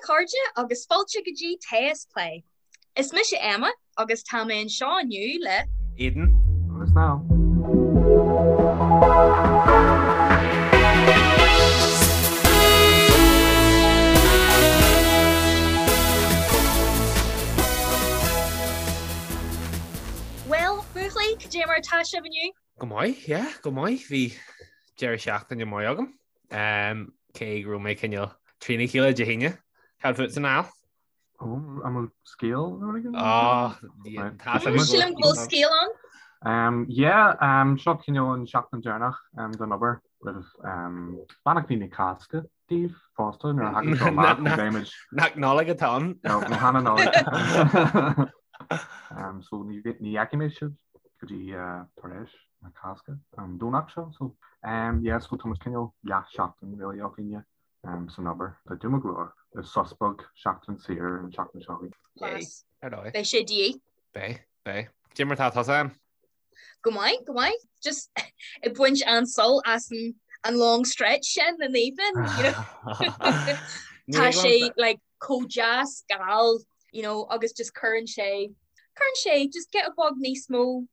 a chairde agus fáilte go dtí Tae is Plé. Is mise Emma agus tá mé anseo inniu le. Aidan. Agus Niall. Bhuel, buachaillí, cad é mar atá sibh inniu? Go maith, yeah, go maith. Bhí deireadh seachtaine maith agam. Cé go raibh mé cineál trína chéile Dé hAoine. Cad fútsa, Niall? Ó, an bhfuil scéal nó rud éigin? Á, tá sé. Sílim go bhfuil scéal ann. Um, yeah, um, seo cineál an seachtain deireanach um, den obair roimh um, beannachtaí na Cásca daoibh fosta nuair a thagann seo amach ní bheimid. Nach Nollaig atá ann? No, ní hea an Nollaig. Um, so ní ní fheicfidh mé sibh go dtí uh, tar éis na Cásca an Domhnach seo. So, um, yeah, so tá muid cineál leath seachtain really againne um, san obair. Tá dúma go leor. Sos beag seachtain saor an seachtain seo chugainn. Class. Ar dóigh. Beidh sé de dhíth. Beidh, beidh. Cad é mar atá tusa Em? Go maith, go maith. Just ag baint an-sult as an an long stretch sin an evening, you know. Tá sé like chomh deas geal, you know, agus just cuireann sé cuireann sé just giota beag níos mó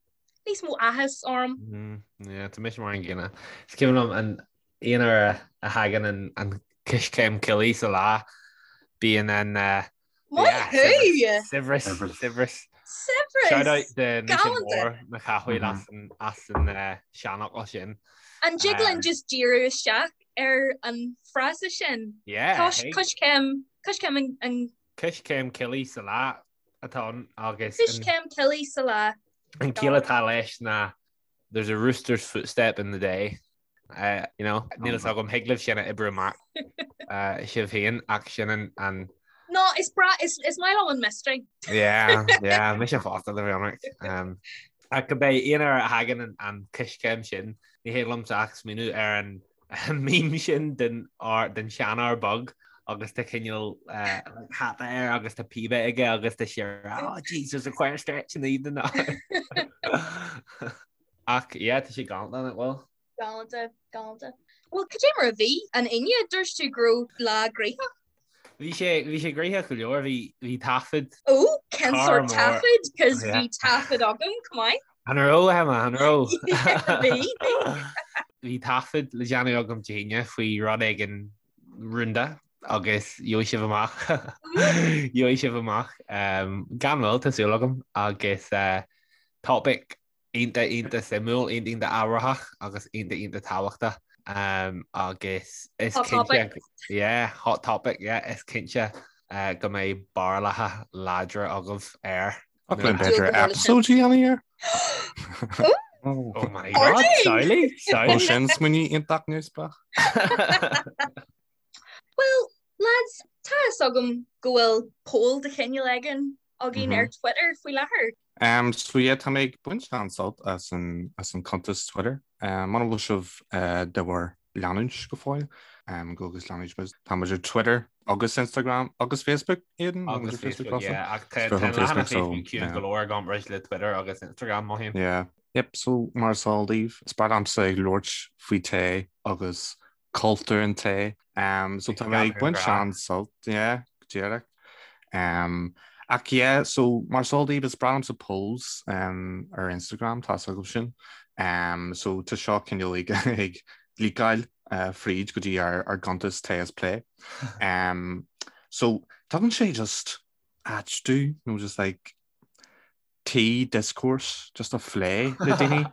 níos mó áthas orm. Mm, yeah, tá mise mar an gcéanna. Is cuimhin liom an aon uair a thagann an an coiscéim coiligh sa lá, bíonn an uh, Maith thú! Saibhreas, saibhreas. Saibhreas! Shout out do Naoise Mór mo chathaoir as an as an seanfhocal sin. An dtig linn just díriú isteach ar an frása sin? Yeah. Coiscéim, coiscéim an. Coiscéim coiligh sa lá atá ann agus. Coiscéim coiligh sa lá. An ciall atá leis ná there's a rooster's footstep in the day. You know, níl fhios agam, thig libh sin a oibriú amach sibh féin ach sin an an. No, is breá, is is maith liom an mystery. Yeah, yeah, mise fosta le bheith ionraic. Um, ach cibé aon uair a thagann an, an coiscéim sin, ní thig liomsa ach smaoineamh ar an meme sin den, den seanfhear beag agus tá cineál uh, hata air agus tá píbe aige agus tá sé oh, Jesus, a quite stretch in the evening now. Ach yeah, tá sé galánta nach bhfuil? Galánta, galánta. Bhuel, cad é mar a bhí an Aoine? Dúirt tú go raibh lá gnoitheach. Bhí sé, bhí sé gnoitheach go leor, bhí, bhí taifead. Ó, cén sórt taifead? Cos bhí taifead agam, chomh maith. An raibh, Emma, an raibh? Bhí, bhí. Bhí taifead le déanamh agam Dé hAoine faoi rud éigin rúnda agus gheobhaidh sibh amach, gheobhaidh sibh amach gan mhoill, tá súil agam, agus topic iontach iontach suimiúil, iontach iontach ábharthach agus iontach iontach tábhachtach agus is Hot topic. cinnte yeah, hot topic, yeah, is cinnte uh, go mbeidh barúlacha láidre agaibh air. Ach le b'fhéidir episode a dhéanamh air? Oh my God, samhlaigh, samhlaigh. Ó sin smaoineamh iontach neamhspleách. Well, lads, tá fhios agam go bhfuil poll de chineál éigin againn ar Twitter faoi láthair. Um, so yeah, tá mé ag baint an-sult as an, as an cuntas Twitter. Um, muna bhfuil sibh uh, de bhur leanúint go fóill, um, go agus leanúint muid. Tá muid ar Twitter agus Instagram agus Facebook, Aidan? Agus Facebook, yeah. Ach tá an leathanach Facebook ciúin go leor i gcomparáid le Twitter agus Instagram, mothaím. Yeah. Yep, so mar is eol daoibh, is breá liomsa ag labhairt faoi tae agus cultúr an tae. Um, so tá mé ag baint an-sult, yeah, go díreach. Um, ach yeah, so mar is eol daoibh is breá liomsa polls um, ar Instagram, tá fhios agaibh sin. Um, so tá seo cineál ag, ag leakáil uh, fríd go dtí ár, ár gcuntas Tae is Plé. Um, so tugann sé just áit dúinn, nó just like tea discourse just a phlé le daoine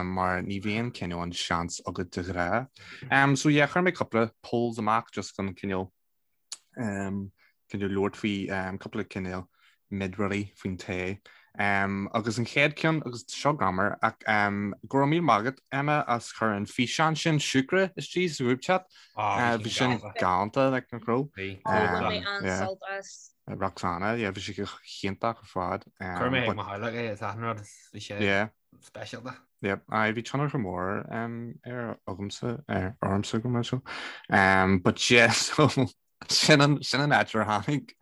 mar ní bhíonn cineál an seans agat de ghnáth. Um, so yeah, chuir mé cúpla polls amach just chun cineál um, cineál labhairt faoi um, cúpla cineál mid rudaí faoin tae. Um, agus an chéad ceann agus seo greannmhar ach um, go raibh míle maith agat Emma as cur an físeán sin siúcra istigh sa group chat. Oh, bhí sin galánta like nach raibh. Bhí. Bhain mé an-sult as. Roxana, yeah, bhí sé go hiontach ar fad. Chuir mé ag mo theaghlach é is achan rud, bhí sé speisialta. Yep, aye, bhí tionchar mór um, ar agamsa, ar ormsa go mar seo. Um, but yeah, so sin an, sin an áit ar tháinig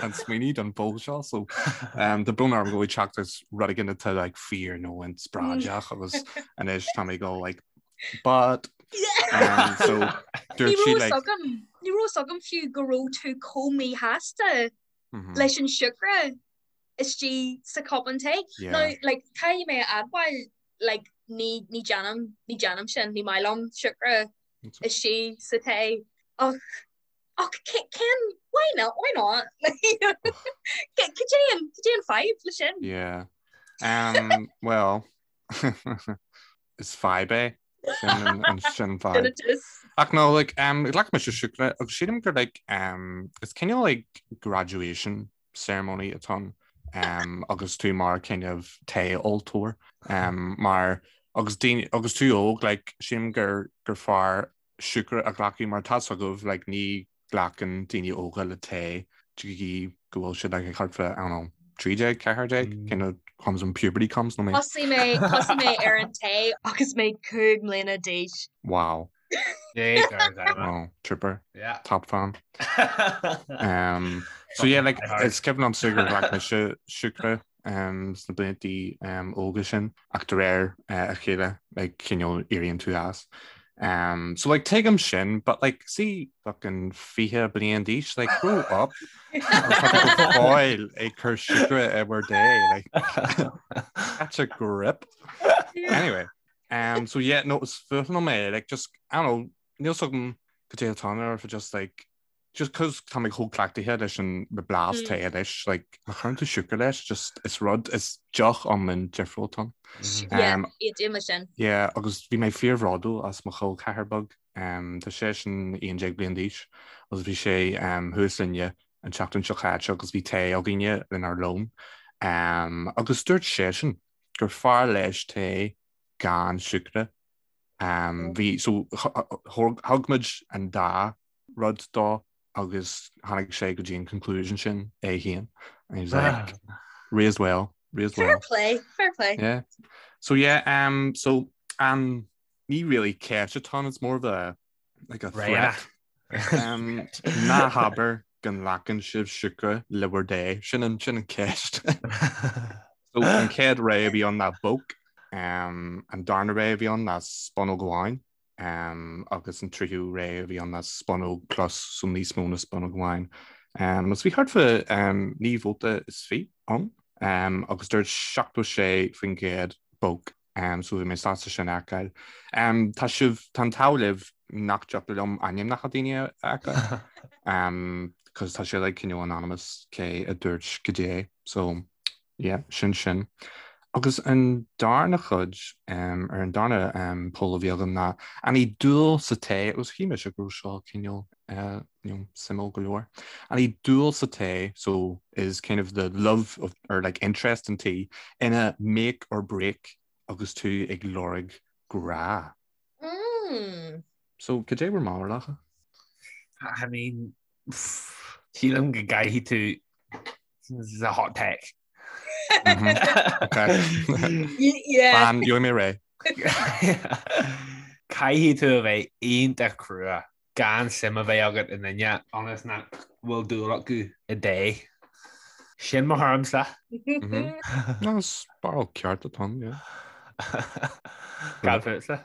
an smaoineamh don poll seo, so um, tá brón orm go bhfuil teacht as rud éigin atá like fíor nó inspioráideach agus anois tá mé ag dul like but. Um, so dúirt sí like Ní raibh fhios agam fiú go raibh tú chomh míshásta mhm. leis an siúcra istigh sa cupán tae. Now like caithfidh mé a admháil like ní ní déanaim ní déanaim sin ní maith liom siúcra istigh sa tae ach ach cén why not why not cad é an cad é an fadhb le sin? Yeah. Um, well is fadhb é sin an sin fadhb. Ach no like um, ghlac mise siúcra agus sílim gur like um, is cineál like graduation ceremony atá ann um, agus tú mar kind of tae óltóir um, mar agus daoine agus tú óg like sílim gur gur fearr siúcra a ghlacadh mar tá fhios agaibh like ní glacann daoine óga le tae go dtí go bhfuil siad like thart fá I don't know 13 14 kind of comes when puberty comes nó mé Thosaigh mé thosaigh mé ar an tae agus mé 5 mbliana d'aois. Wow. Oh, trooper. Yeah. Top fan. Um, so yeah, like, is cuimhin liomsa gur ghlac mise siúcra um, sna blianta um, óga sin ach de réir uh, a chéile like, cineál éiríonn tú as. Um, so like tuigim sin, but like see fucking 20 bliain d'aois, like grow up. Agus tá tú go fóill ag cur siúcra i bhur dtae, like catch a grip. Anyway, Um, so yeah, no, is fuath liom é, like, just, I don't know, níl fhios agam cad é atá ann or if it just like, just cause tá mé chomh cleachtaithe leis an blas tae anois, like, má chuireann tú siúcra leis, just, is rud, is deoch iomlán difriúil atá ann. Yeah, Um, aontaím leis sin. yeah, agus bhí mé fíorbhródúil as mo chol ceathar beag, um, tá seisean 11 bliain d'aois, agus bhí sé um, thuas linne an tseachtain seo caite agus bhí tae againne lenár lón, um, agus dúirt seisean gur fearr leis tae gan siúcra. Bhí, so thug muid an dá rud dó agus tháinig sé go dtí an conclusion sin é féin. And he was like, raised well, raised well. Fair play, fair play. Yeah. So yeah, um, so um, ní really ceist atá ann, it's more of a like a threat. Um, ná habair go nglacann sibh siúcra le bhur dtae, sin an sin an ceist. So an chéad rogha a bhí ann ná bóc, um, an darna rogha a bhí ann ná spúnóg amháin, um, agus an tríú rogha a bhí ann ná spúnóg plus so níos mó ná spúnóg amháin. Um, agus bhí thart fá um, 9 vóta is 20 ann, um, agus dúirt 76% bóc. So bhí mé sásta sin a fheiceáil. Tá sibh, tá an t-ádh libh nach dtiocfadh liom ainmneacha daoine a fheiceáil. Cos tá sé like cineál anonymous cé a dúirt goidé. So yeah, sin sin. Agus an darna chuid, ar an darna poll a bhí agam ná an í dúil sa tae, agus shíl mise go raibh seo cineál you know, suimiúil go leor. An í dúil sa tae, so is kind of the love of, or like interest in tea, ina make or break agus tú ag lorg grá. Mm. So, cad é bhur mbarúlacha? I mean, sílim go gcaithfidh tú this is a hot take. Okay. Yeah. Fan, gheobhaidh mé réidh. Caithfidh tú a bheith iontach crua gan suim a bheith agat i nduine ionas nach bhfuil dúil acu i dtae. Sin mo thuairimse. No, is barúil ceart atá ann, yeah. Cad fútsa?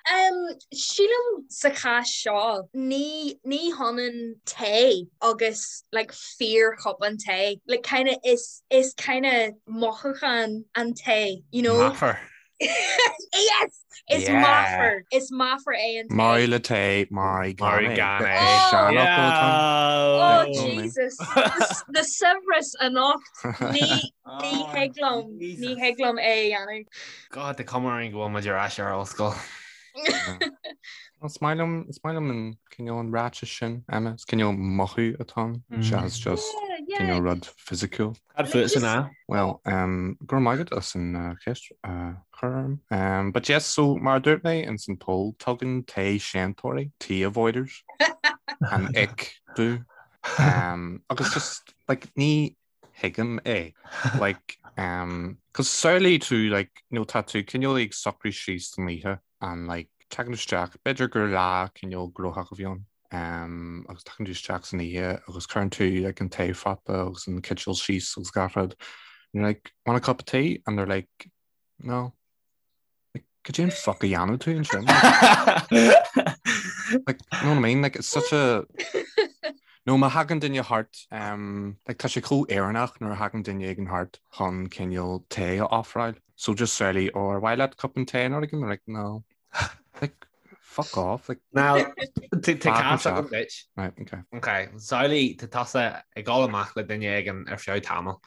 Um, sílim sa chás seo, ní, ní hionann tae agus like fíorchupán tae. Like kind of is, is kind of mothúchán an tae, you know? Meafar. Yes! Is Yeah. meafar. Is meafar é an tae. Mairigh le tae, mairigh gan Mairigh é. gan é. Is seanfhocal atá ann. Oh, Yeah. Jesus. The, the saibhreas anocht. Ní, ní thig liom, ní Jesus. thig liom é a dhéanamh. God, tá cuma orainn go bhfuil muid ar ais ar ollscoil. Is maith liom, is maith liom an cineál an ráiteas sin, Emma. Is cineál mothú atá ann, seachas just Yeah, yeah. cineál rud fisiciúil. Cad fútsa ná? Well, um, go raibh maith agat as an uh, cheist uh, chur orm. Um, but yes, so mar a dúirt mé ins an poll, tugann tae séantóirí, tea avoiders, an ick domh. Um, agus just, like, ní thuigim é. Like, um, cos samhlaigh tú, like, you know, tá tú cineál ag socrú síos don oíche and like, tagann tú isteach, b'fhéidir gur lá cineál gnóthach a bhí ann, um, agus tagann tú isteach san oíche agus cuireann tú like an taephota agus an citeal síos agus gach rud. And you're like, want a cup of tea? And they're like, no. Like, Cad é an fuck a dhéanann tú ansin? Like, you know what I mean? Like, it's such a... Nó má thagann duine thart, um, like, tá sé chomh Éireannach nuair a thagann duine éigin thart chun cineál tae a ofráil. So just surely, or ar mhaith leat cupán tae nó rud éigin? Like, no. Like, fuck off. Like, Now, tá cás agam duit. Right, okay. Okay, samhlaigh tá tusa ag dul amach le duine éigin ar feadh tamaill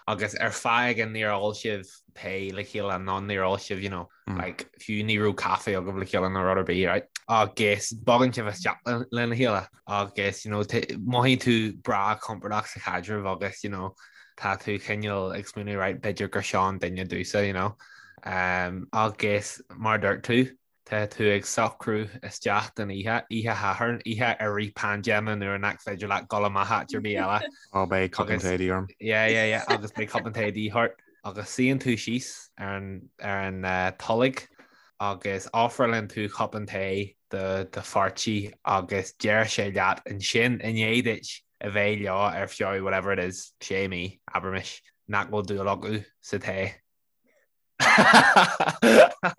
agus ar fáth éigin níor ól sibh tae le chéile nó níor ól sibh, you know, mm. like, fiú ní raibh caife agaibh le chéile nó rud ar bith, right? Agus bogann sibh isteach lena chéile agus, you know, mothaíonn tú breá compordach sa chaidreamh agus, you know, tá tú cineál ag smaoineamh, right, b'fhéidir gur seo an duine domhsa, you know. Um, agus mar dúirt tú, Tá tú ag socrú isteach don oíche, oíche Shathairn, oíche i rith paindéime nuair nach féidir leat dul amach áit ar bith eile. Ó, beidh cupán tae de dhíth orm. Yeah, yeah, yeah, agus beidh cupán tae de dhíth ort. Agus suíonn tú síos ar an, ar an tolg agus ofrálann tú cupán tae do do pháirtí agus deir sé leat ansin, i ndiaidh duit a bheith leo ar feadh whatever it is, sé mí, abraimis, nach bhfuil dúil acu sa tae.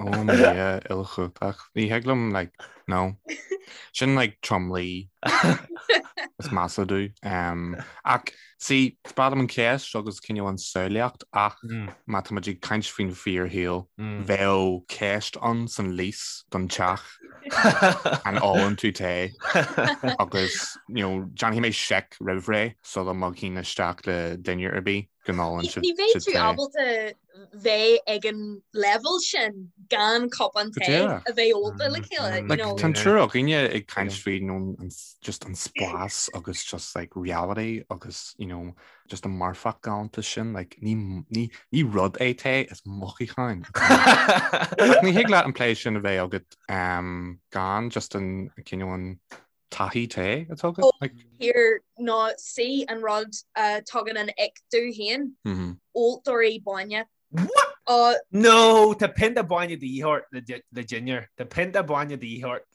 Ó mo Dhia uilechumhachtach. Ní thig liom like no. Sin like tromluí is measa domh. Um, ach see, is breá liom an cheist agus cineál an samhlaíocht ach má tá muid ag caint faoin fíorshaol, bheadh ceist ann san lease don teach an ólann tú tae agus you know, déanfaidh mé seic roimh ré sula mbogfainn isteach le duine ar bith go n-ólann siad Ní bheidh tú ábalta bheith ag an level sin gan cupán tae a bheith ólta le chéile. Like, tá an triúr againne ag caint faoi you know, an, just an spás agus just like reality agus you know, just an marfach galánta sin like, ní, ní, ní rud é tae is mothúchán. Ach ní thig leat an plé sin a bheith agat um, gan just an cineál an taithí tae atá agat? Like... Here ná sí an rud a tugann an ick domh féin, óltóirí bainne. What? Uh, no, tá pionta bainne de dhíth ort le dinnéar. Tá pionta bainne de dhíth ort.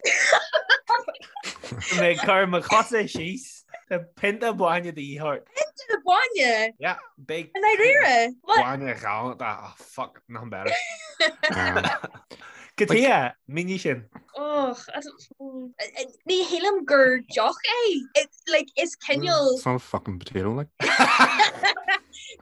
Mé cur mo chosa síos. Tá pionta bainne de dhíth ort. Pionta bainne? Yeah, big. I ndáiríre? What? Bainne ghalánta. Oh, fuck, nothing better. Cad chuige? Mínigh sin. Och, I don't- mm, eh, eh, ní shílim gur deoch é. It, like, is cineál It's not a fucking potato, like.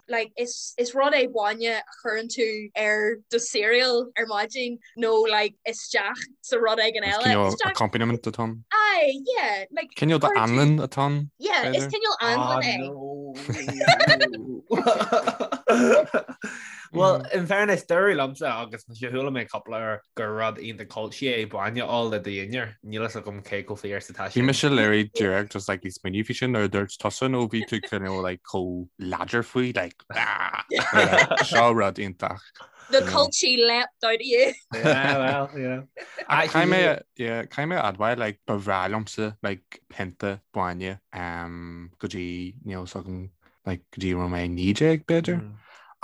like, is, is rud é bainne a chuireann tú ar do cereal ar maidin nó like, isteach sa rud éigin Is eile. cineál Isteach- accompaniment atá ann. Aye, yeah, like, Cineál chuireann tú- d'anlann atá ann. Yeah, is b'fhéidir. cineál anlann é. no. Well, in fairness, dúradh liomsa agus mise chuala mé cúpla uair gur rud iontach culchy é bainne a ól le do dhinnéar. Níl fhios agam cé chomh fíor is atá Bhí sin. mise literally díreach just like ag smaoineamh faoi sin nuair a dúirt tusa nó bhí tú cineál like chomh láidir faoi like ah like, seo rud iontach. The culchy leapt out of you. Yeah, well, you know. Ach caithfidh mé yeah, caithfidh mé a admháil like ba bhreá liomsa like pionta bainne um, go dtí níl fhios agam like, go dtí raibh mé 19 b'fhéidir. Mm.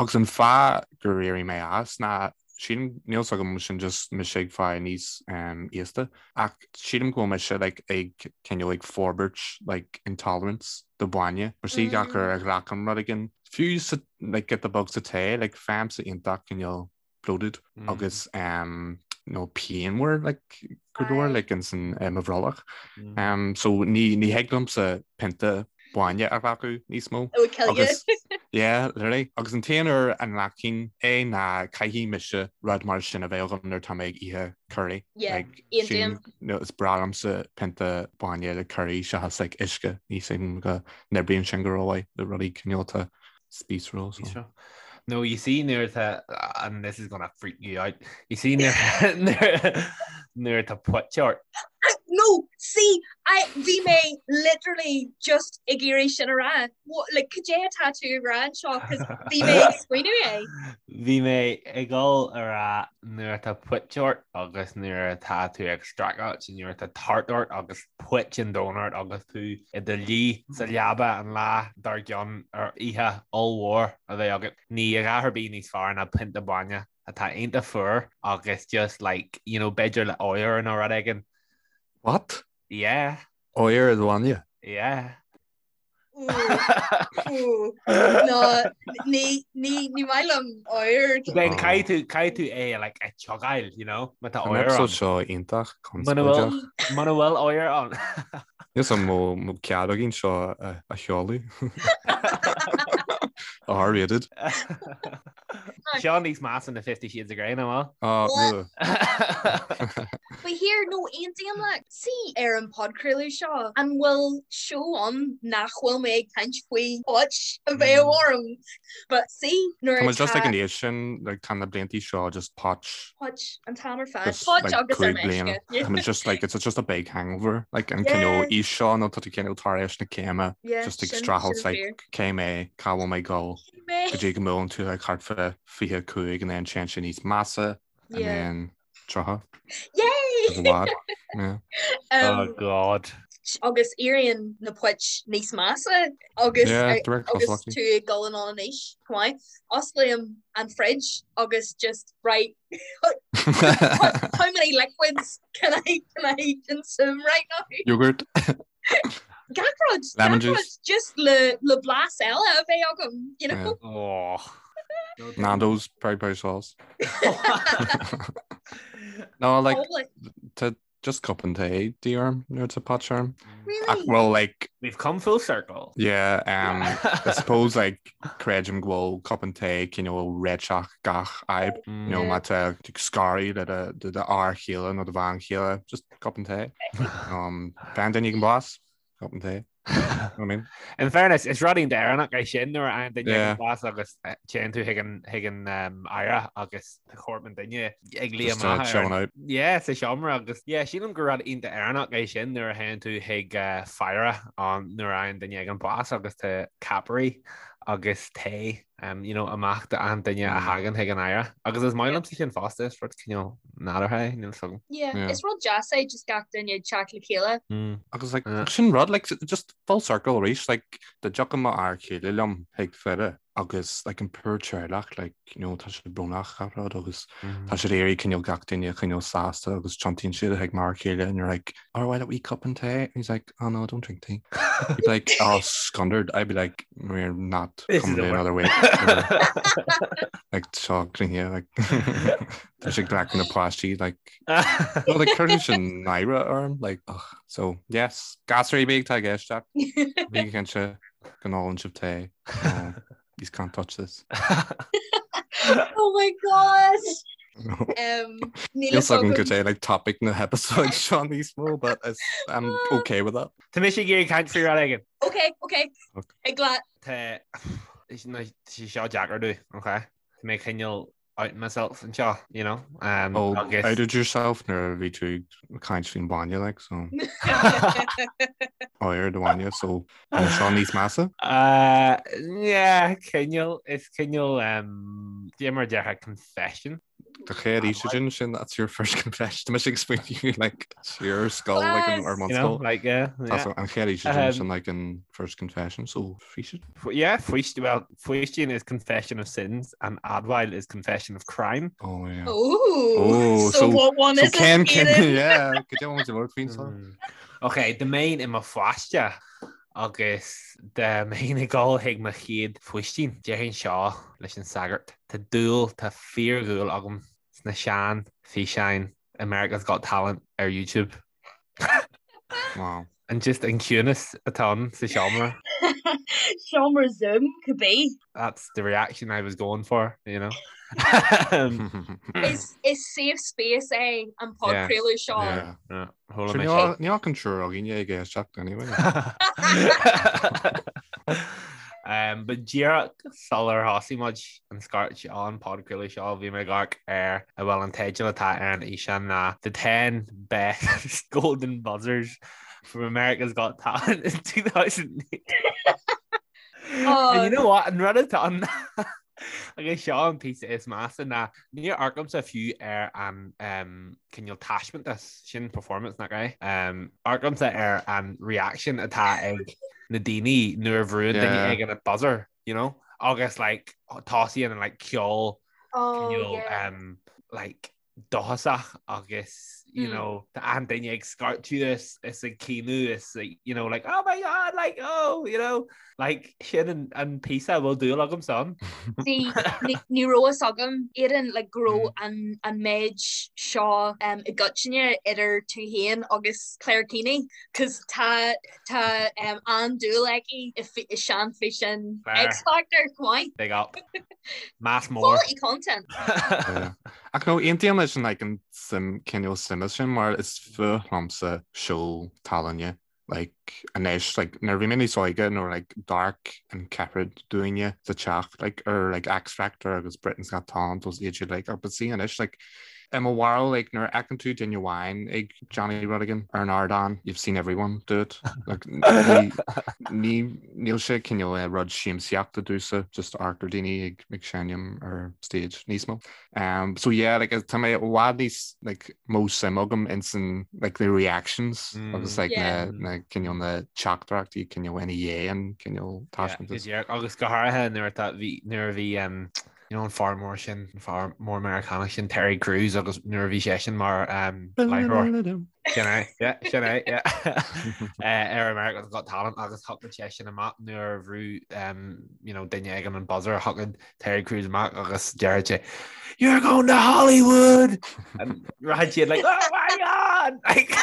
Agus an fáth gur éirigh mé as ná sílim níl fhios agam sin just mise ag fáil níos um, aosta ach sílim go bhfuil mise like, ag cineál ag forbairt like, intolerance do bhainne mar sí gach uair a ghlacaim rud éigin fiú sa like, giota beag sa tae like, faighimse iontach cineál bloated agus um, nó pianmhar like, go leor like, in san uh, mo bhrollach. Mm. Um, so ní, ní thig liomsa pionta bainne a ghlacadh níos mó. It would kill you. Agus, yeah, literally. Agus an t-aon uair a nglacfainn é ná caithfidh mise rud mar sin a bheith agam nuair atá mé ag ithe curry. Yeah, Like, aontaím. sílim, no, is breá liomsa pionta bainne le curry seachas like, uisce. Ní sílim go n-oibríonn sin go rómhaith le rudaí cineál atá spíosrúil. So. No, you see nuair atá, and this is gonna freak you out, you see nuair nuair atá puit ort. No, see, I, bhí mé literally just ag iarraidh sin a rá. What, like, cad é atá tú ag rá anseo, 'cause bhí mé ag smaoineamh é. Bhí mé ag dul a rá nuair atá puit ort agus nuair atá tú ag streachailt nuair atá tart ort agus puit an domhain ort agus tú i do luí sa leaba an lá dár gcionn ar oíche ollmhór a bheith agat. Ní a dhath ar bith níos fearr ná pionta bainne atá iontach fuar agus just like, you know, b'fhéidir le oighear nó rud éigin. What? Yeah. Oighear i do bhainne? Yeah. No, ní ní maith liom oighear. Then caithfidh tú caithfidh tú é like a chiogáil, you know, má tá An oighear episode ann. seo iontach Muna bhfuil conspóideach. muna bhfuil oighear ann. Níl 's agam an bhfuil cead againn seo a a sheoladh. R-rated. Seo níos measa ná Fifty Shades of Grey, nach bhfuil? Ah, ugh. But here, no, aontaím leat. See, ar an podchraoladh seo, an bhfuil seó ann nach bhfuil mé ag caint faoi phoit a bheith orm? But see, nuair Tá muid just atá ag an aois sin, like, tá na bliantaí seo just poit, poit an t-am ar fad, just poit like agus ar 5 bliana. meisce. Tá muid just like, it's just a big hangover. Like an cineál Yeah, aois seo nó tá tú cineál tar éis na céime, yeah, just ag sin, streachailt sin like fíor. cé mé, cá bhfuil mé ag dul, Cé mé? go dtí go mbuaileann tú like thart fá 25 and then téann sé níos measa and Yeah. then 30. Yay! Is i bhfad. Yeah. Oh Um, God. agus éiríonn na poit níos measa agus Yeah, de réir agus cosúlachtaí. tú ag dul anonn in aois chomh maith. Osclaím an fridge agus just right how many liquids can I can I consume right now? Yogurt, Gach rud, lemon gach rud, juice. just le le blas eile a bheith agam, you Yeah. know? Oh. No, don't. Nando's peri peri sauce. No, like Probably. to just cup an tae de dhíth orm nuair atá poit orm. Ach Really? well like We've come full circle. yeah, um I suppose like creidim go bhfuil cupán tae cineál réiteach gach fhadhb. You know, Yeah. má tá tú ag scaradh le do do fhear chéile nó do bhean chéile, just cupán tae. Um, faigheann duine éigin bás, cupán tae. You know what I mean? In fairness, is rud iontach Éireannach é sin nuair a fhaigheann duine Yeah. éigin bás agus eh, téann tú chuig an chuig an um, fhaire agus tá corp an duine ag luí Just uh, amach ar chilling an out. Yeah, sa seomra agus yeah, sílim gur rud iontach Éireannach é sin nuair a théann tú chuig uh, faire an nuair a fhaigheann duine éigin bás agus tá ceapairí agus tae um, you know, amach d'achan duine a thagann chuig an fhaire. Agus is maith liomsa sin fosta, is rud cineál nádúrtha é, níl 's agam. Yeah, Yeah. is rud deas é just gach duine ag teacht le chéile. Mm. Agus like, Yeah. sin rud like, just full circle arís like, dá dtiocfadh mo fhear céile liom chuig faire agus like, an poor teaghlach like, you know, tá siad brónach gach rud agus tá siad ag iarraidh cineál gach duine a choinneáil sásta agus tiontaíonn siad chuig m'fhear céile and you're like, oh, why don't we cupán tae? And he's like, oh no, don't drink tea. He'd be like, oh, scundered. I'd be like, we're not This coming is to over. another week. You know? Like, seo cruinne, like, tá sé glacadh na páistí, like, well, like, cuireann sin náire orm, like, ugh. So, yes, gasúir bíg tá ag éisteacht, bígí cinnte go n-ólann sibh tae. No, you can't touch this. Oh my gosh! Um, níl Níl fhios 's agam agam. cad é like topic na hepisode seo níos mó, but it's, I'm okay with that. Tá mise ag iarraidh caint faoi rud éigin. Okay, okay. Okay. Ag leat. Tá sé seo deacair domh, okay? Tá mé cineál out myself anseo, you know? Um, Oh, agus outed yourself nuair a bhí tú ag caint faoin bainne, like, so oighear do bhainne, so an seo níos measa? Uh, yeah, cineál, is cineál, um, cad é mar a déarfá confession. Do chéad oíche sin sin, that's your first confession. Tá mise ag smaoineamh, like, your skull, like, an, or You know, skull. like, yeah, That's yeah. an chéad oíche sin Um, sin, like, an first confession, so faoisean. Yeah, faoist, well, faoistin is confession of sins and admháil is confession of crime. Oh, yeah. Oh, Oh, so, so- what one So is Ken, it, Ken, Aidan? yeah, cad é an bhfuil faoin seo? Mm. Ok, dá mbeinn i mo pháiste agus dá mbeinn ag dul chuig mo chéad faoistin, déarfainn seo leis an sagart. Tá dúil, tá fíordhúil agam sna sean físeáin America's Got Talent ar YouTube. Wow. And just an ciúnas atá ann sa seomra. Seomra Zoom could be. That's the reaction I was going for, you know. Is is safe space é an podchraoladh seo. Yeah. Yeah, hold Sure, on níl níl ach an triúr againne ag éisteacht anyway. Um, but díreach sular thosaigh muid an scairt an podchraoladh seo bhí mé ag amharc ar a bhfuil an teideal atá ar an fhíseán ná The 10 Best Golden Buzzers from America's Got Talent in 2008. Oh. And you know what? An rud atá ann agus seo an píosa is measa ná níor amharcaimse fiú ar an um, cineál taispeántas sin performance nach é. Um, amharcaimse ar an reaction atá ag na daoine nuair a bhrúann duine Yeah. éigin an buzzer, you know? Agus like tosaíonn an like ceol Oh, cineál yeah. um, like dóchasach agus you know, tá achan duine ag scairteadh is is ag caoineadh is you know, like, oh my god, like, oh, you know, like, sin an, an píosa a bhfuil dúil agam san. See, ní, ní raibh fhios agam, Aidan, like, go raibh an, an méid seo um, i gcoitinne idir tú féin agus Claire Keaney, cos tá, tá um, an-dúil aici i, i seanfhíseáin X Factor, chomh maith. Big up. Meas mór. Quality content. Ach no, aontaím leis an like an suim cineál suime sin mar is fuath liomsa seó tallainne. Like anois like nuair a bhí mé níos óige nuair like d'amharc an ceathrar dúinne sa teach like ar like X Factor agus Britain's Got Talent agus iad siad like but see anois like i mo bharúil like nuair a fheiceann tú duine amháin ag déanamh rud éigin ar an ardán you've seen everyone do it. Like ní ní níl sé cineál eh, rud siamsaíochta domhsa just amharc ar daoine ag ag seinm ar stage níos mó. Um, so yeah, like tá mé i bhfad níos like mó suim agam ins an like the reactions mm. agus like yeah. na na cineál na teachtaireachtaí cineál ina dhiaidh an cineál taispeántas. Yeah, agus go háirithe nuair atá bhí nuair a bhí um, you know, an fear mór sin an fear mór Meiriceánach sin Terry Crews agus nuair a bhí seisean mar um, láithreoir. Sin é, yeah, sin é, yeah. Eh, ar America's Got Talent agus thiocfadh seisean amach nuair a bhrú um, you know, duine éigin an buzzer thiocfadh Terry Crews amach agus deireadh sé You're going to Hollywood! And rachadh siad like, oh my God! Like,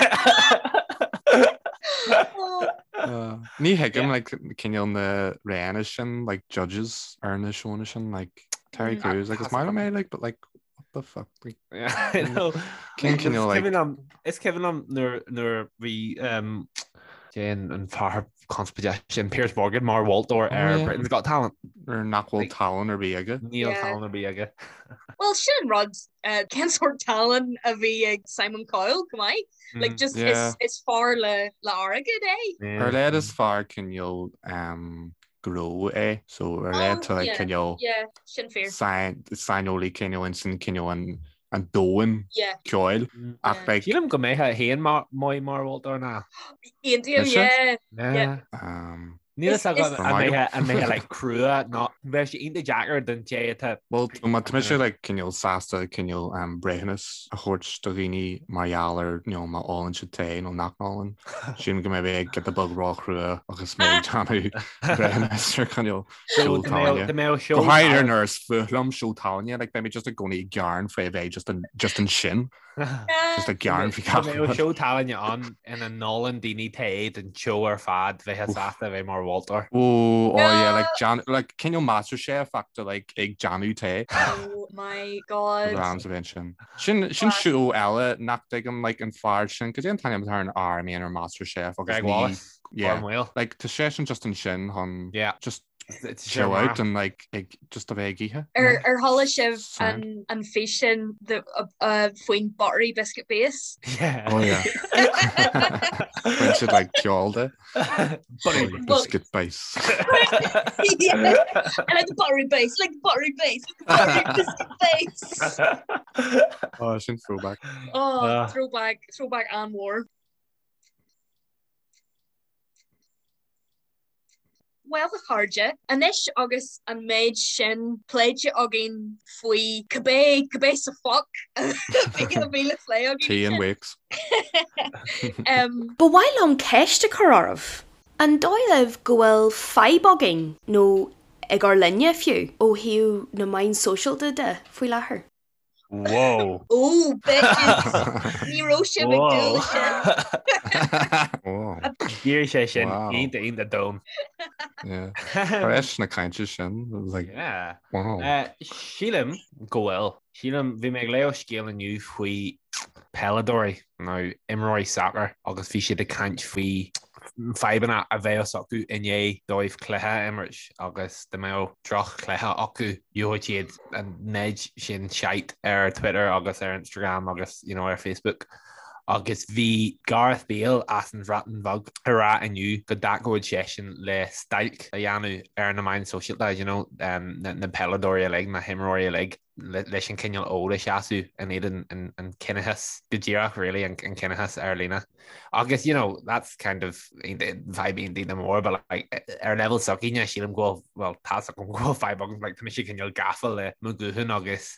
Uh, ní thuigim like cineál na ranna sin like judges ar na seónna sin like Terry mm. Crews like is maith liom é like but like what the fuck like yeah, know. Cén cineál like Is cuimhin liom nuair nuair bhí um, Jane an fear conspóideach sin Piers Morgan mar mholtóir ar oh, Britain's Got Talent. Ar nach bhfuil tallann ar bith aige. Níl tallann ar bith aige. Well sin an rud uh, cén sórt tallann a bhí ag Simon Cowell go maith. Like mm, just yeah. is, is fear le le airgead é. Ar leid is fear cineál um, gnó é so ar leid tá like, cineál saineolaí cineál insan cineál an an domhan ceoil mm. ach like Sílim go mbeadh féin maith mar mholtóir ná. Aontaím, yeah. Um, Níl a fhios agam an mbeadh like crua nó bheadh sé iontach deacair don té atá. Bhuel má tá mise like cineál sásta cineál um, breithiúnas a thabhairt do dhaoine mar gheall ar you know, má ólann siad tae nó nach n-ólann. Sílim go mbeidh mé ag giota beag róchrua agus mé ag déanamh breithiúnas ar cineál seó tallainne. Go háirithe nuair is fuath liom seó tallainne, like beidh mé just i gcónaí ag gearán faoi a bheith just an just ansin. Just ag gearán faoi gach rud. Seó tallainne ann ina n-ólann daoine tae don tseó ar fad bheifeá sásta a bheith mar mholtóir. Oh, oh yeah, like Jan, like cineál MasterChef ach de like ag déanamh tae. Oh my god. Rams a bheith sin. Sin sin seó eile nach dtuigim like an fear sin, cad é an t-ainm atá ar an fhear a mbíonn ar MasterChef agus Greg Wallace. Yeah, like tá seisean just ansin chun yeah. just chill out and like ag just a bheith ag ithe. Ar ar chuala sibh an an físeán the uh, faoin buttery biscuit base? Yeah. Oh yeah. Bhain siad like ceol de. Buttery biscuit base. yeah. I like the buttery base, like the buttery base, like the buttery biscuit base. Oh, sin throwback. Oh, uh. throwback, throwback and war. Bhuel, a chairde, anois agus an méid sin pléite againn faoi cibé, cibé sa foc a bhí le plé againn. Tea and Wakes. Ba mhaith liom ceist a chur oraibh. An dóigh libh go bhfuil fadhb againn, nó ag ár linne fiú, ó thaobh na meán sóisialta de faoi láthair? Whoa. Ó, bitches! Ní raibh sibh ag dúil leis sin. D'éirigh sé sin iontach iontach domhain. Yeah. Tar éis na cainte sin, it was like, Yeah. wow. Sílim go bhfuil. Sílim, bhí mé ag léamh scéal inniu faoi peileadóirí nó imreoirí sacair agus bhí siad ag caint faoi fadhbanna a bheadh acu i ndiaidh dóibh cluiche a imirt agus dá mbeadh droch-chluiche acu, gheobhadh siad an méid sin shite ar Twitter agus ar Instagram agus you know, ar Facebook. Agus bhí Gareth Bale as an Bhreatain Bheag ag rá inniu go dtacódh seisean le stailc a dhéanamh ar na meáin sóisialta, you know, um, na, na peileadóirí uilig, na himreoirí uilig. leis an cineál fód a sheasamh in éadan an ciníochas go díreach really an ciníochas ar líne. Agus you know that's kind of fadhb iontach mór but like ar level s'againne sílim go bhfuil well tá's agam go bhfuil fadhb agam like tá mise cineál gafa le mo ghuthán agus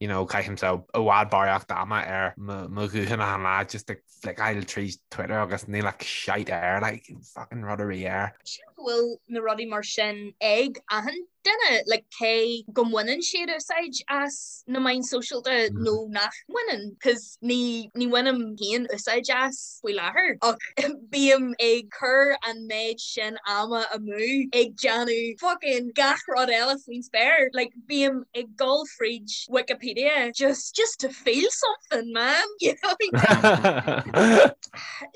you know, caithimse i bhfad barraíocht ama ar mo ghuthán achan lá just ag flickeáil tríd Twitter agus níl ach shite air, like, fucking rud ar bith air. Sílim go bhfuil na rudaí mar sin ag achan duine, like, cé go mbaineann siad úsáid as na meáin sóisialta nó nach mbaineann, cos ní, ní bhainim féin úsáid as faoi láthair ach bím ag cur an méid sin ama amú ag déanamh fucking gach rud eile faoin spéir, like, bím ag dul fríd Wikipedia just just to feel something man you know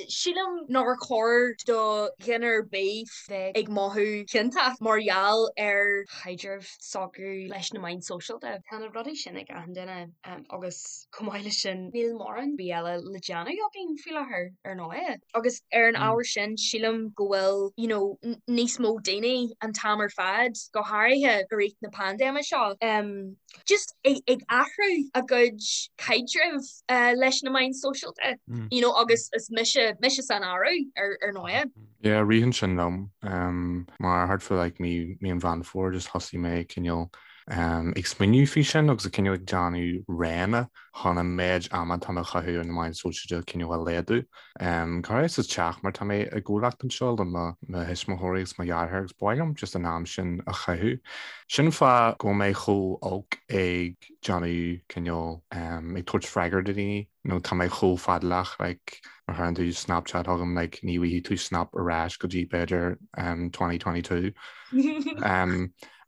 Sílim nár chóir do dhuine ar bith bheith ag mothú ciontach mar gheall ar chaidreamh s'acu leis na meáin sóisialta. Tá na rudaí sin ag achan duine agus chomh maith leis sin níl mórán bith eile le déanamh againn faoi láthair ar ndóigh. Agus ar an ábhar sin sílim go bhfuil you know níos mó daoine an t-am ar fad, go háirithe i rith na paindéime seo, just ag athrú a gcuid caidrimh leis na meáin sóisialta you know agus is mise mise san áireamh ar ar ndóigh. Yeah, ritheann sin liom mar thart fá like mí mí an Mheán Fómhair just thosaigh mé cineál ag smaoineamh faoi sin agus cineál ag déanamh roghanna chun an méid ama atá mé a chaitheamh ar na meáin sóisialta cineál a laghdú. Go háirithe sa teach mar tá mé i gcomhlacht anseo le mo thuismitheoirí agus mo dheartháir agus ba mhaith liom just an am sin a chaitheamh. Sin an fáth go bhfuil mé chomh olc ag déanamh cineál ag tabhairt freagra do dhaoine nó tá mé chomh fadálach like má chuireann tú Snapchat chugam like ní bhfaighidh tú snap ar ais go dtí b'fhéidir 2022.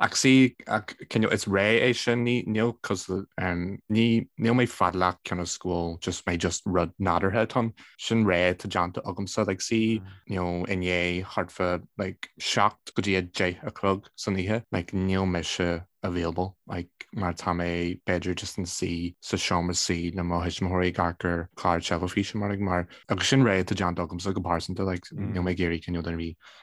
Ach see, ach cineál is ré é sin, ní, níl cos, ní, níl mé fadálach cionn is go bhfuil just mé just rud nádúrtha atá ann. Sin ré atá déanta agamsa, like see, you know, inné thart fá like 7 go dtí 10 a chlog san oíche, like níl mise available, like mar tá mé b'fhéidir just ina suí sa seomra suí le mo thuismitheoirí ag amharc ar chlár teilifíse mar like mar agus sin ré atá déanta agamsa go pearsanta, like níl mé ag iarraidh cineál duine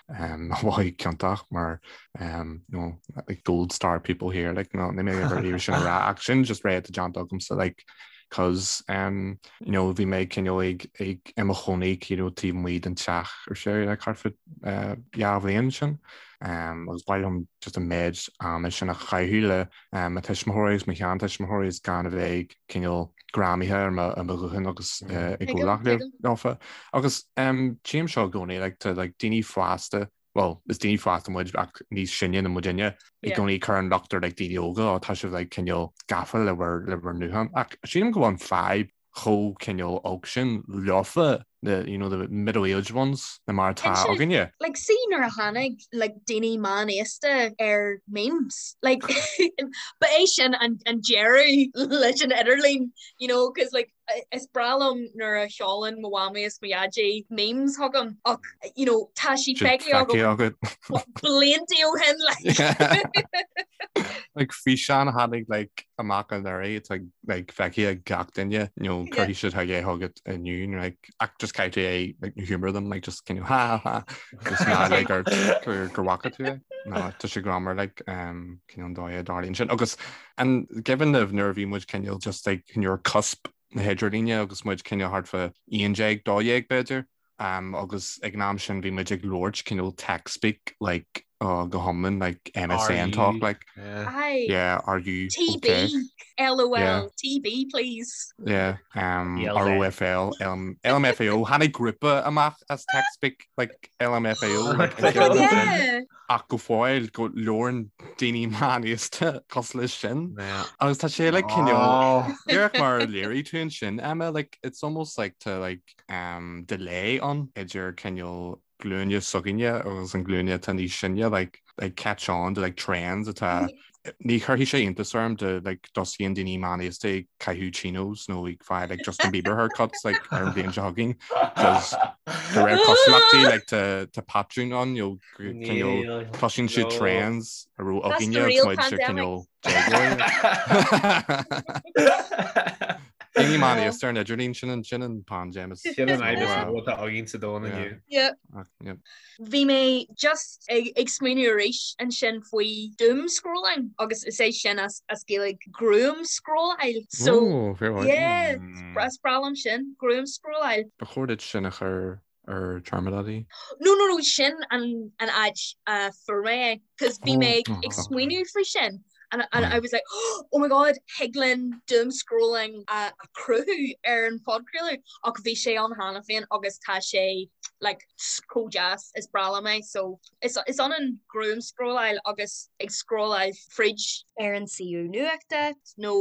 ar bith a mhothú ciontach mar you know, like gold star people here like no ní mé ever iarraidh sin a rá ach sin just ré atá déanta agamsa like cause um, you know, bhí mé cineál ag ag i mo chónaí you know, taobh amuigh den teach ar sé like thart fá uh, dhá bhliain sin um, agus ba mhaith liom just an méid ama sin a chaitheamh le um, mo tuismitheoirí agus mo sheantuismitheoirí is gan a bheith ag cineál greamaithe ar mo ar mo ghuthán agus i gcomhlacht leofa. Agus tchím seo i gcónaí like tá like daoine fásta, well is daoine fásta muid ach níos sine ná muidinne i gcónaí ag cur an locht ar like daoine óga ó tá sibh like cineál gafa le bhur le bhur nguthán ach sílim go bhfuil an fadhb chomh cineál olc sin leofa the you know the middle aged ones ná mar atá againne. Like see nuair a tháinig like daoine meánaosta ar memes like ba é sin an an deireadh leis an idirlíon you know cause like is breá liom nuair a sheolann mo mhamaí is mo dhaidí memes chugam ach you know tá sí feicthe agam blianta ó shin like. Like físeán a tháinig like amach anuraidh it's like like feicthe ag gach duine you know cuirfidh siad chuig é chugat inniu like ach just caithfidh tú é like humor them like just cineál ha ha ha just ná like gur gur gur bhfaca tú é no tá sé greannmhar like um cineál an dóigh a dtarlaíonn sin agus an cuimhin libh nuair a bhí muid cineál just like nuair cusp na hidirlíne agus muid cineál thart fá 11 12 b'fhéidir um agus ag an am sin bhí muid ag labhairt cineál tech speak like oh go hiomlán like MSN talk like Aye. yeah are you TB okay LOL yeah TB please. yeah um ELZ. ROFL L LMFAO tháinig grúpa amach as tech speak like LMFAO like Oh an ceann sin Yeah. ach go fóill go labhrann daoine meánaosta cosúil leis sin Yeah. agus tá sé like cineál Oh. díreach mar a léirigh tú ansin Emma like it's almost like to like um delay ann idir cineál glúine s'againne agus an glúine atá níos sine like like catch on to like trends atá ní chuirfidh sé iontas orm dá like dtosaíonn daoine meánaosta ag caitheamh chinos nó ag fáil like Justin Bieber haircuts like ar an bhliain seo chugainn cos de réir cosúlachtaí like tá tá patrún ann you know cineál Níl. cloiseann siad No. trends a raibh That's againne the agus real muid sa pandemic. cineál déagóirí. Daoine meánaosta ar an idirlíon sin an sin an paindéim is Sin an fhadhb is Yeah. mó atá againn sa domhan Yeah. inniu. Yeah. Ach, yeah. Bhí mé just ag ag smaoineamh arís ansin faoi doom scrolling agus is é sin as as Gaeilge gruaimscrolláil. So Oh, fair point. yeah, Mm. is breá liom sin, gruaimscrolláil. Ba chóir duit sin a chur ar Charmadaí. No no no sin an an áit a fuair mé é, cos bhí mé Oh, ag smaoineamh faoi sin. And, and I was like, oh my god, thig linn doom scrolling a chruthú ar an phodchraoladh ach bhí sé ann cheana féin agus tá sé like chomh deas is breá liom é so is, is ionann gruaim scrolláil agus ag scrolláil fríd ar an suíomh nuachta nó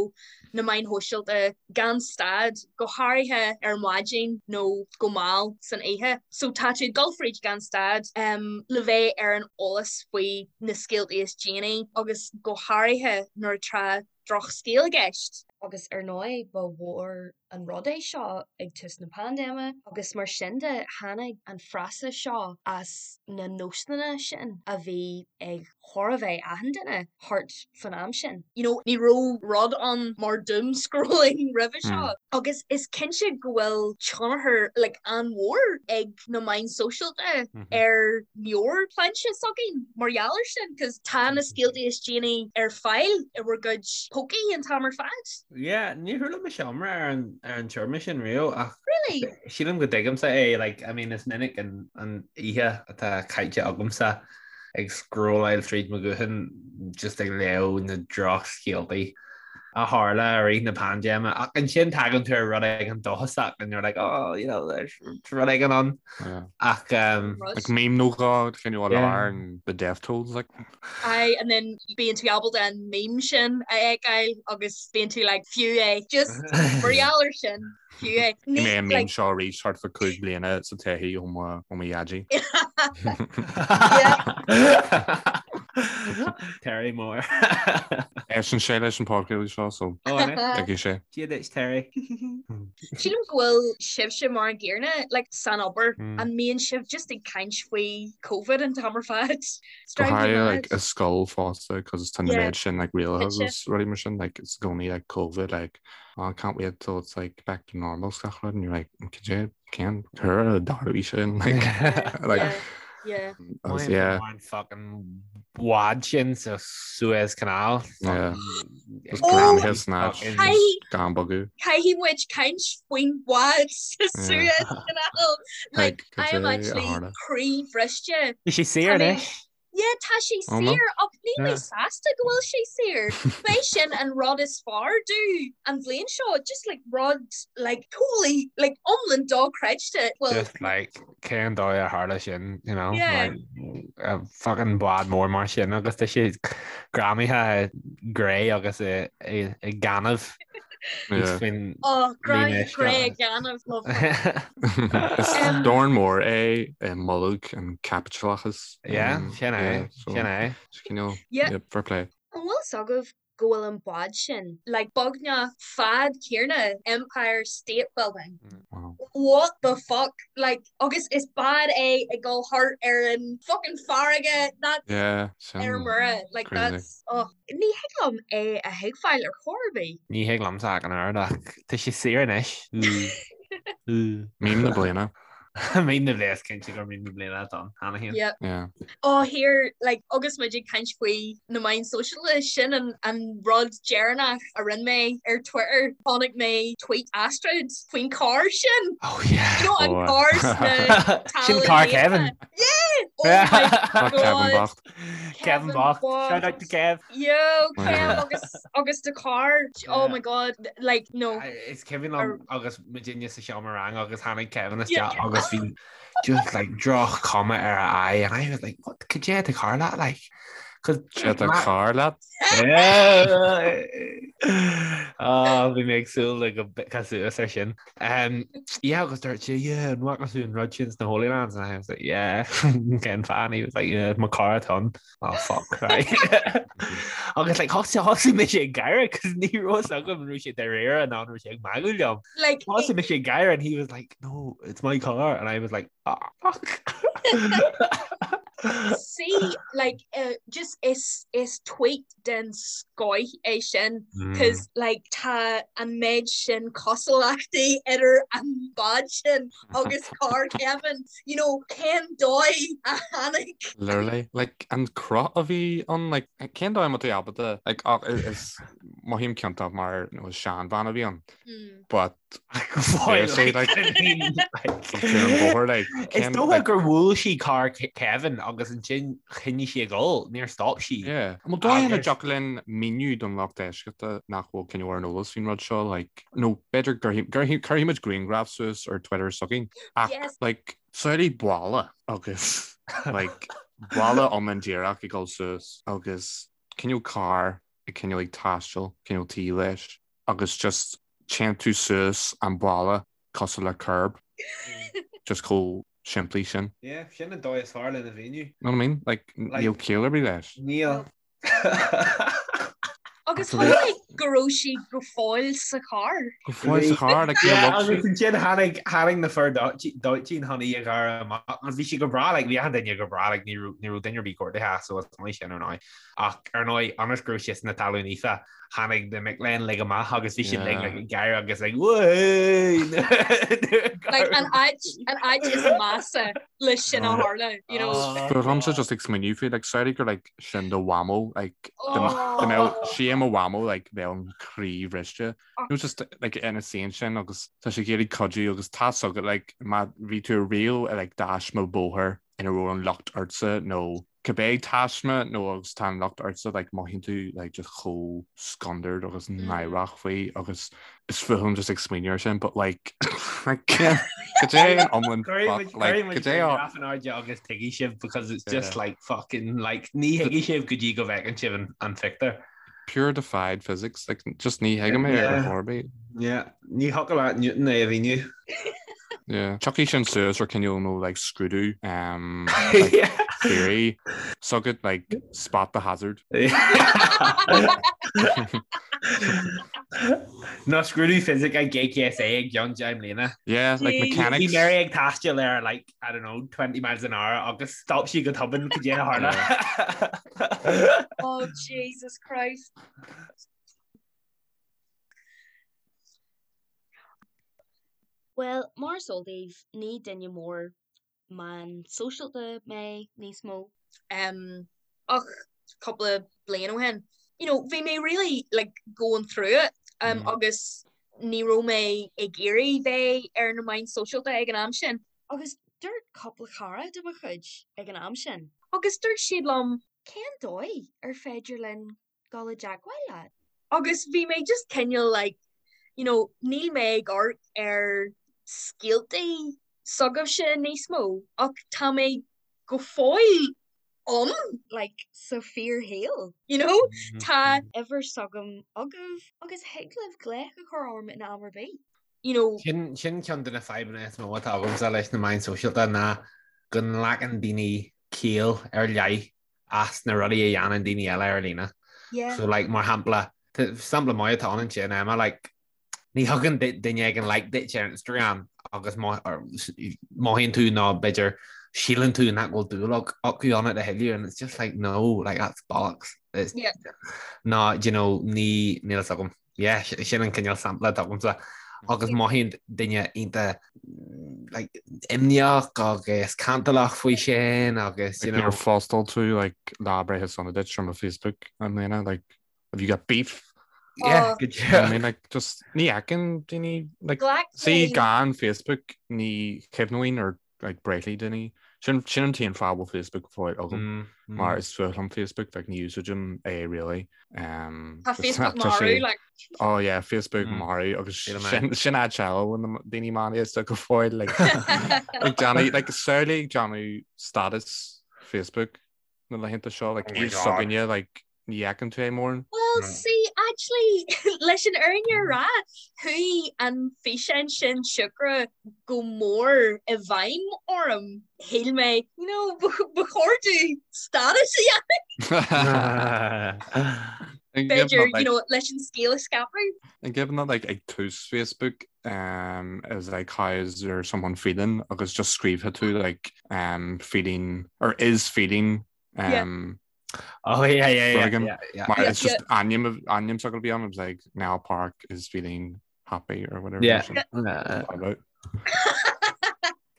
na meáin shóisialta gan stad, go háirithe ar maidin nó go mall san oíche. So tá tú ag dul fríd gan stad le bheith ar an eolas faoi na scéaltaí is déanaí agus go háirithe nuair atá drochscéal i gceist. Agus ar ndóigh ba mhór an rud é seo ag tús na paindéime agus mar sin de tháinig an frása seo as na nósanna sin a bhí ag chóir a bheith achan duine thart fan am sin. You know, ní raibh rud ann mar doom scrolling roimhe seo agus is cinnte go bhfuil tionchar like an-mhór ag na meáin sóisialta ar mheabhairshláinte s'againn mar gheall air sin cos tá na scéaltaí is déanaí ar fáil i bhur gcuid pócaí an t-am ar fad. Yeah, níor chuala mise iomrá ar an ar an téarma sin riamh ach Really? sílim go dtuigimse é like I mean is minic an an oíche atá caite agamsa ag scrolláil tríd mo ghuthán just ag léamh na drochscéaltaí a tharla i rith na paindéime ach ansin tagann tú ar rud éigin dóchasach and you're like oh you know there's rud éigin ann ach um, Like meme nó dhó cineál yeah. and the death tolls like. Aye, and then bíonn tú ábalta an meme sin a fheiceáil agus bíonn tú like fiú é just mar gheall air sin. Fiú é. Ní mé an meme seo arís thart fá 5 bliana sa todhchaí ó mo ó mo dhaidí. Terry Moore. Éisteann sé leis an podchraoladh seo so Ó, an é? tuigfidh sé. Dia duit, Terry. Sílim go bhfuil sibhse mar an gcéanna, like, san obair, an mbíonn sibh just ag caint faoi Covid an t-am ar fad? It's Go driving me háirithe like mad. i scoil fosta cos tá na Yeah, méid sin like rialacha cinnte. agus rudaí mar sin like it's i gcónaí like Covid like oh, I can't wait till it's like back to normal 's gach rud and you're like cad é cén uair a dtarlóidh sin like like Yeah, yeah. agus yeah An fucking bád sin sa Suez Canal. yeah Fucking just Oh, greamaithe san áit fucking just gan bogadh Caithfidh muid caint faoin bhád sa yeah Suez Canal. Like, like cad I am é a actually tharla croíbhriste. Bhí sé saor Tá mé anois. Yeah, tá sé Oh no. saor ach níl mé Yeah. sásta go bhfuil sé saor. B'é sin an rud is fearr domh an bhliain seo, just like rud like totally like iomlán dochreidte. Well, Just like cén dóigh a tharla sin, you know, yeah. like a fucking bád mór mar sin agus tá sé greamaithe i gcré agus i i i gaineamh. Yeah. Faoin Oh, líne greamaithe uisce. cré gaineamh, lovely. Is Um, dorn mór é i mbolg an chaipitleachais. Yeah, Um, sin é, yeah, so sin é. is cineál, yeah. yeah, fair play. An bhfuil fhios agaibh go bhfuil an bád sin Like beagnach fad céanna Empire State Building. Wow. What the fuck? Like agus is bád é ag dul thart ar an fucking farraige that's Yeah, ar sin mire like crazy. that's oh. Ní thig liom é a thuigbheáil ar chor ar bith. Ní thig liomsa ach an oiread ach tá sé saor anois. Meme na bliana. Meme na bliana, is cinnte gur meme na bliana atá ann, cheana féin. Yep. Yeah. Oh here, like agus muid ag caint faoi na meáin sóisialta, sin an an rud deireanach a rinne mé ar Twitter. Chonaic mé tweet Astrid faoin carr sin. Oh yeah. You know an Oh, carr sna Sin carr Kevin. Yeah! Oh my Tá Kevin God. bocht. Kevin bocht. Shout out to Kev. Yo, Kev Yeah. agus agus the car. Oh Yeah. my God. Like no. Is cuimhin liom agus muidinne sa seomra ranga agus tháinig Kevin Yeah. isteach agus bhí just like droch-chuma ar a aghaidh and I was like what cad é atá ag tarlú leat like cause Sé tá carr leat? Yeah. Oh, bhí mé ag súil le go bpiocfá suas ar sin. Um, yeah, agus dúirt sé, yeah, an bhfaca tú an rud sin sna Holy Lands? And I was like, yeah, cén fáth? And he was like, yeah, mo car atá ann. Oh, fuck, right. Agus like, thosaigh thosaigh mise ag gáire, cos ní raibh fhios agam an raibh sé dáiríre nó an raibh sé ag magadh liom. Like, Thosaigh mise ag gáire and he was like, no, it's my car. And I was like, ah, fuck. See, like, uh, just is is tweet den scoith é sin, cos like tá an méid sin cosúlachtaí idir an bád sin agus carr Kevin, you know, cén dóigh a tháinig. Literally, like, an cruth a bhí ann, like, cén dóigh a mbeadh tú ábalta, like, ach is mothaím ciontach mar nó is seanbhean a bhí ann. But deir sé like ar an bhóthar like Is dócha gur bhuail sí carr Kevin agus ansin choinnigh sí ag dul, níor stop sí. Yeah. An bhfuil dóigh ina dtiocfadh linn míniú don lucht éisteachta nach bhfuil cineál ar an eolas faoin rud seo like nó b'fhéidir cuirfidh muid grianghraf suas ar Twitter s'againn ach like samhlaigh balla agus like balla iomlán díreach ag dul suas agus cineál carr ag cineál ag taisteal cineál taobh leis agus just téann tú suas an balla cosúil le curb. Just chomh simplí sin. Yeah, sin an dóigh is fearr lena mhíniú. Know what I mean? Like, níl ciall ar bith leis. Níl. Agus chonaic mé go raibh sí go fóill sa charr. Go fóill sa charr, like, níor bhog sí. Agus ansin tháinig, tháinig na fir dóiteáin chun í a ghearradh amach agus bhí sí go breá, like, bhí achan duine go breá, like, ní raibh, ní raibh duine ar bith gortaithe so is maith sin ar ndóigh. Ach ar ndóigh, ionas go raibh sí sna talún fífa, tháinig na mic léinn uilig amach agus bhí siad like ag gáire agus like Whey! Like an áit, an áit is measa le sin a tharla, you know. But táimse just ag smaoineamh faoi, like samhlaigh gur like sin do mhamó, like dá mbeadh sí i mo mhamó like bheadh an croí bhriste. Nó just like ina suí ansin agus tá sí ag iarraidh cuidiú agus tá 's agat like má bhí tú riamh i like taisme bóthair ina raibh an locht ortsa nó cibé taisme nó agus tá an locht ortsa like mothaíonn tú like just chomh scanrúil agus náireach faoi agus is fuath liom just ag smaoineamh ar sin but like like cad é an iomlán fuck like cad é an airde agus tuigfidh sibh because it's just like fucking like ní thuigfidh sibh go dtí go bhfeiceann sibh an an phictiúr. Pure defied physics like just ní thuigim é ar chor ar bith. Yeah, ní thiocfadh le Newton é a mhíniú. Yeah. Tiocfaidh sin suas ar cineál nó like scrúdú um, like, yeah. theory s'agat like spot the hazard. Nó scrúdú fisic ag JKSA i gceann 10 mbliana. Yeah, like mechanics. Bhí Mary ag taisteal ar like, I don't know, 20 miles an hour agus stop sí go tobann cad é a tharla. Oh Jesus Christ. Bhuel, mar is eol daoibh, ní duine mór meán sóisialta mé níos mó. Ach cúpla bliain ó shin, you know, bhí mé really like going through it agus ní raibh mé ag iarraidh bheith ar na meáin sóisialta ag an am sin. Agus dúirt cúpla cara de mo chuid ag an am sin. Agus dúirt siad liom. Cén dóigh ar féidir linn dul i dteagmháil leat? Agus bhí mé just cineál like, you know, níl mé ag amharc ar scéaltaí s'agaibhse níos mó ach tá mé go fóill ann. Like, sa fíorshaol. You know, tá. uimhir s'agam agaibh agus thig libh glaoch a chur orm in am ar bith. You know. Sin sin ceann de na fadhbanna is mó atá agamsa leis na meáin sóisialta ná go nglacann daoine ciall ar leith as na rudaí a dhéanann daoine eile ar líne. Yeah. So like mar shampla, sampla maith atá ann ansin Emma, like ní thugann duine éigin like duit ar Instagram agus mothaíonn tú nó b'fhéidir síleann tú nach bhfuil dúil acu ionat a thuilleadh and it's just like no, like that's bollocks. It's, yeah. No, you know, ní níl fhios agam. Yeah, sin an cineál sampla atá agamsa. Agus mothaíonn duine iontach like, imníoch agus cantalach faoi sin agus you know. Níor phostáil tú like, lá breithe sona duit ar mo Facebook i mbliana, like, have you got beef? Yeah, oh. good job. I mean, like, just ní fheiceann daoine like, see gan Facebook ní chuimhneoinn ar like breithlaí daoine. Sin sin an t-aon fáth a bhfuil Facebook go fóill agam mm, mm. mar is fuath liom Facebook like ní úsáidim é really. Um, Tá Facebook marú like. Oh yeah, Facebook mm. marú agus sin sin áit eile na daoine meánaosta go fóill like like déanamh like samhlaigh ag déanamh status Facebook na laethanta seo like oh s'againne like Ní fheiceann tú é mórán. Well, see, actually, leis an fhírinne a rá, chuaigh an físeán sin siúcra go mór i bhfeidhm orm. Shíl mé, you know, ba chóir domh status a dhéanamh. B'fhéidir, you know, leis an scéal a scaipeadh. An gcuimhin leat, like, ag tús Facebook, um, is like, how is there someone feeling? Agus just scríobhadh tú, like, um, feeling, or is feeling, um, Oh yeah, yeah, yeah, yeah, yeah. Mar it's just ainm ainm s'agat a bhí ann, it was like Niall Park is feeling happy or whatever. Yeah. About.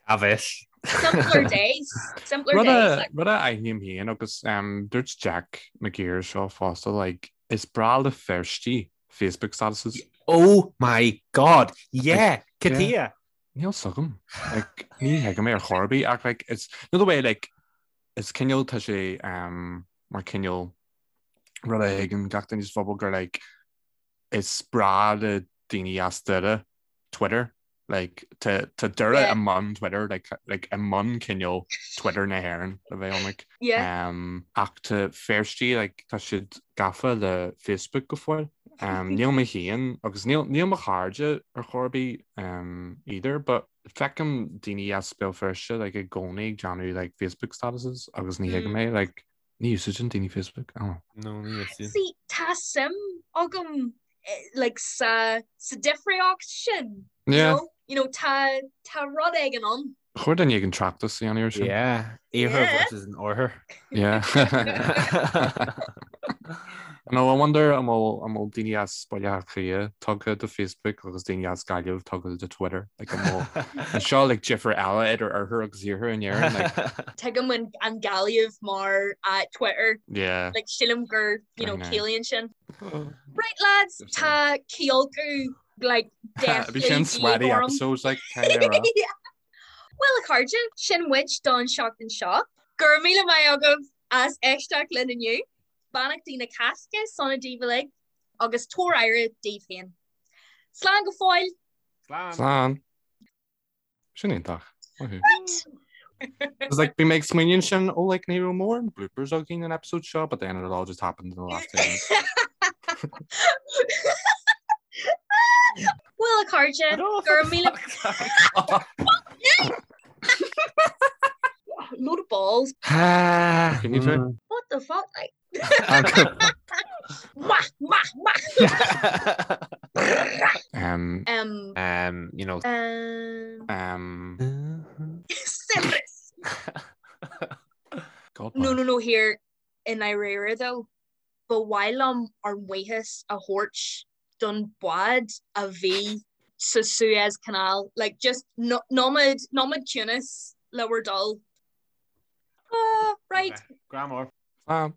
Cá bhfios. Simpler days. Simpler days. Rud a aithním féin agus um, dúirt Jack McGear seo fosta like, is breá le Feirstí. Facebook statuses. Oh my God! Yeah! Cad chuige? Níl 's agam. Like, ní thuigim é ar chor ar bith ach like, it's, you know the way like, is cineál tá sé um, mar cineál rud a thuigeann gach duine sa phobal gur like, is breá le daoine as Doire Twitter. Like, tá tá Doire Yeah. i mbun Twitter, like, like, i mbun cineál Twitter na hÉireann le bheith ionraic. Yeah. Um, ach tá Feirstigh, like, tá siad gafa le Facebook go fóill. Um, níl mé féin agus níl, níl mo chairde ar chor ar bith um, either, but feicim daoine as Béal Feirste like, i gcónaí ag déanamh like, Facebook statuses agus ní thuigim é, like, Ní úsáideann daoine Facebook. I don't know. No, ní úsáideann. See, tá suim agam like sa sa difríocht sin. You Yeah. know? You know, tá tá rud éigin ann. Ba chóir duine éigin tráchtas a dhéanamh air sin. Yeah. Iarthar Yeah. versus an Oirthear. Yeah. No, I wonder an bhfuil an bhfuil daoine as Baile Átha Cliath tugtha do Facebook agus daoine as Gaillimh tugtha do Twitter. Like an bhfuil an seo like difear eile idir oirthear agus iarthar in Éirinn like Tuigim an an Gaillimh mar uh, Twitter. yeah. Like sílim gur you know I know. ciallaíonn sin. Right lads, tá ciolcú like Bhí sin sweaty episodes like kind of Yeah. Well a chairde, sin muid don seachtain seo. Go raibh míle maith agaibh as éisteacht linn inniu. Beannachtaí na Cásca sona daoibh uilig agus tabhair aire daoibh féin. Slán go fóill! Slán! Slán! Sin iontach. Maith thú. Right! It's like bhí mé ag smaoineamh ansin oh like ní raibh mórán bloopers againn an episode seo but then it all just happened in the last 10 minutes. Well a chairde, go raibh míle Load of balls. Can you try? What the fuck? Like... Wah, wah, wah. Um, Um, Um, you know. um, um, Cerberus. God No, bless. no, no, here i ndáiríre though, ba mhaith liom ár mbuíochas a thabhairt don bhád a bhí sa Suez Canal. Like, just no, nóiméad, nóiméad ciúnas le bhur dtoil. Ah, right. Grá mór. Slán.